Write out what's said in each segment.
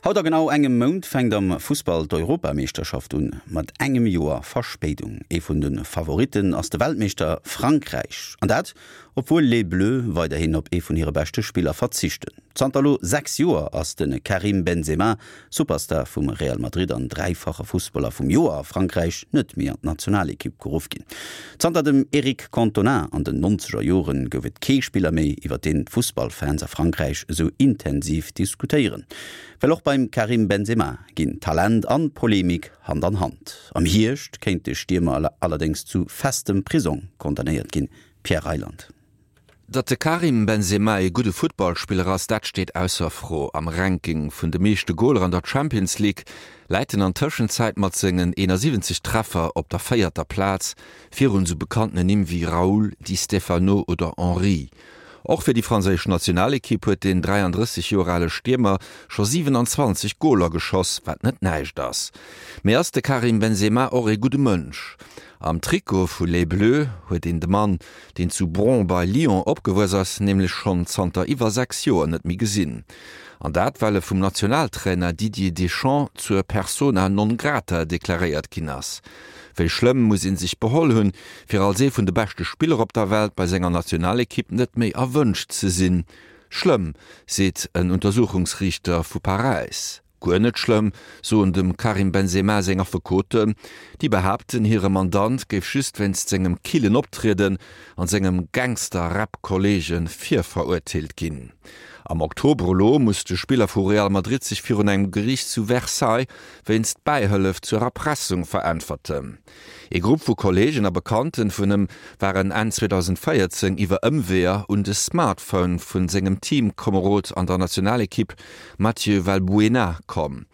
Haut a genau engem Mount fänkt am Fussball d'Europameeschterschaft un, mat engem Joer Verspéidung. Ee vun de Favoritten ass de Weltmeeschter Frankräich. An dat, obwuel Les Bleus weiderhin op ee vun hire beschte Spiller verzichten. Zanter elo 6 Joer ass de Karim Benzema, Superstar vum Real Madrid an dräifache Fussballer vum Joer a Frankräich, net méi an d'Nationalekipp geruff ginn. Zanter dem Eric Cantona an den nonzeger Joren gouf et kee Spiller méi, iwwer deen d'Fussballfans a Frankräich esou intensiv diskutéieren. Well och beim Karim Benzema ginn Talent an Polemik Hand an Hand. Am Hierscht kéint de Stiermer allerdéngs zu festem Prisong condamnéiert ginn. Pierre Reyland. Datt de Karim Benzema ee gudde Futtballspiller ass, dat steet ausser Fro. Am Ranking vun de meeschte Goler an der Champions League läit en an Tëschenzäit mat sengen 71 Treffer op der véierter Plaz, virun esou bekanntene Nimm wéi Raúl, Di Stefano oder Henry. Och fir déi franséisch Nationalekipp huet den 33 Joer ale Stiermer scho 27 Goler geschoss, wat net näischt ass. Mee ass de Karim Benzema och ee gudde Mënsch? Am Trikot vu Les Bleus huet een de Mann, deen zu Bron bei Lyon opgewuess ass, nämlech schonn zanter iwwer 6 Joer net méi gesinn. An dat well e vum Nationaltrainer Didier Deschamps zur Persona non grata deklaréiert ginn ass. Wéi schlëmm muss ee sech beholl hunn, fir als ee vun de beschte Spiller op der Welt bei senger Nationalekipp net méi erwënscht ze sinn? Schlëmm, seet en Untersuchungsriichter vu Paräis. Guer net schlëmm, soen dem Karim Benzema seng Affekoten. Déi behaapten, hire Mandant géif just wéinst sengem killen Optrieden an sengem Gangster-Rap-Kolleege virverurteelt ginn. Am Oktober elo muss de Spiller vu Real Madrid sech virun engem Geriicht zu Versailles wéinst Bäihëllef zur Erpressung veräntwerten. Ee Grupp vu Kolleegen a Bekannten vun him waren Enn 2014 iwwer Ëmweeër un de Smartphone vun sengem Teamkomerod an der Nationalekipp Mathieu Valbuena komm.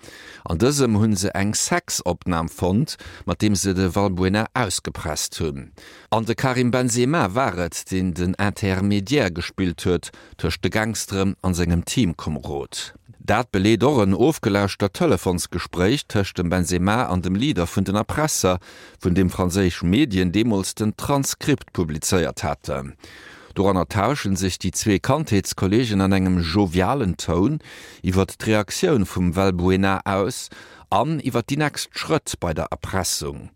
An dësem hunn se eng Sexopnam fonnt, mat deem se de Valbuena ausgepresst hunn. An de Karim Benzema war et, deen den Intermediaire gespillt huet tëscht de Gangsteren an sengem Teamkomerod. Dat beleet och en ofgelauschtert Telefonsgespréich tëscht dem Benzema an dem Leader vun den Erpresser, vun deem franséisch Medien deemools den Transkript publizéiert haten. Doranner tauschen sech déi zwee Kandheetskolleegen an engem jovialen Toun iwwert d'Reaktioun vum Valbuena aus an iwwert déi nächst Schrëtt bei der Erpressung.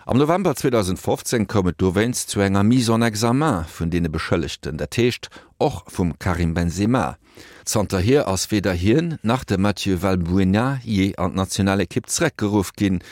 Am November 2015 koum et dowéinst zu enger Mise en examen vun deene Beschëllegten, dat heescht och vum Karim Benzema. Zanterhier ass weder hien nach de Mathieu Valbuena jee an d'Nationalekipp zeréckgeruff ginn.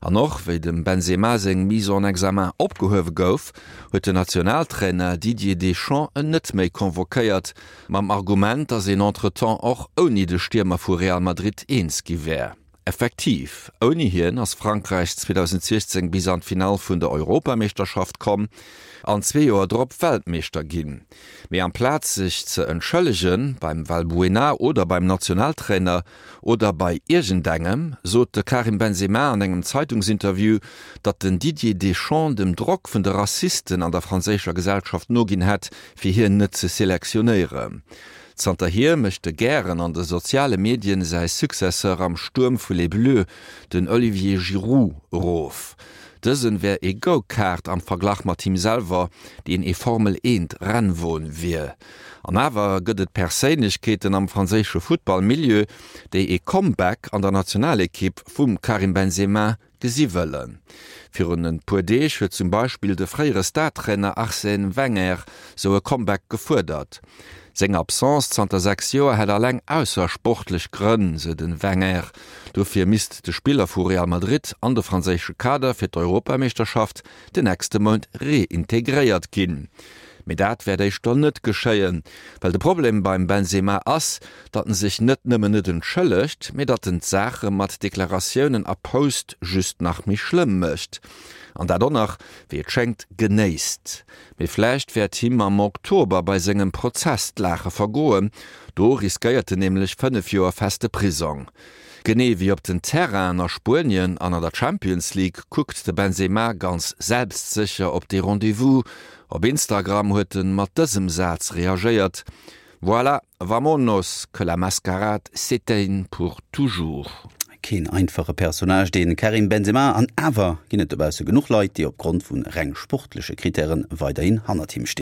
An och wéi dem Benzema seng Mise en examen opgehuewe gouf, huet den Nationaltrainer Didier Deschamps en net méi convoquéiert, mam Argument, datt een entretemps och ouni de Stiermer vu Real Madrid eens gi wär. Effektiv, ouni hien ass Frankräich 2016 bis an d'Finall vun der Europameeschterschaft komm an zwee Joer drop Weltmeeschter ginn. Mee amplaz sech ze entschëllege beim Valbuena oder beim Nationaltrainer oder bei iergendengem, sot de Karim Benzema an engem Zeitungsinterview, datt den Didier Deschamps dem Drock vun de Rassisten an der franséischer Gesellschaft noginn hätt, fir hien net ze selektionéieren. Zanterhier mécht e gären an de soziale Medien säi Successeur am Stuerm vu Les Bleus, den Olivier Giroud, erof. Dësen wär ee Go-Kart am Verglach mat him selwer, deen ee Formel Eent Rennwon wier. An awer gëtt et Perséinlechkeeten am franséische Futtball-Milieu, déi ee Comeback an der Nationalekipp vum Karim Benzema gesi wëllen. Virun e puer Deeg huet zum Beispill de fréiere Star-Trainer Arsène Wenger sou e Comeback gefuerdert. Seng Absence zanter 6 Joer hätt alleng aussersportlech Grënn, sou de Wenger. Dofir misst de Spiller vu Real Madrid an de franséische Kader fir d'Europameeschterschaft den nächste Mount reintegréiert ginn. Mee dat wäert éischter net geschéien, well de Problem beim Benzema ass, datt en sech net nëmmen net entschëllegt, mee datt en d'Saache mat Deklaratiounen a Post just nach méi schlëmm mécht. An dat och nach, wéi et schéngt, genéisst. Mee vläicht wäert him am Oktober bei sengem Prozess d'Laache vergoen, do riskéiert en nämlech 5 Joer feste Prisong. Genee wéi op den Terrainen a Spuenien an an der Champions League kuckt de Benzema ganz selbstsécher op dee Rendez-vous. Op Instagram huet en mat dësem Saz reagéiert, Voilà, vamonos, que la mascarade s'éteigne pour toujours. Keen einfache Personnage, dee Karim Benzema, an awer ginn et dobausse genuch Leit, déi opgrond vu reng sportleche Krittäre weiderhin hannert him stinn.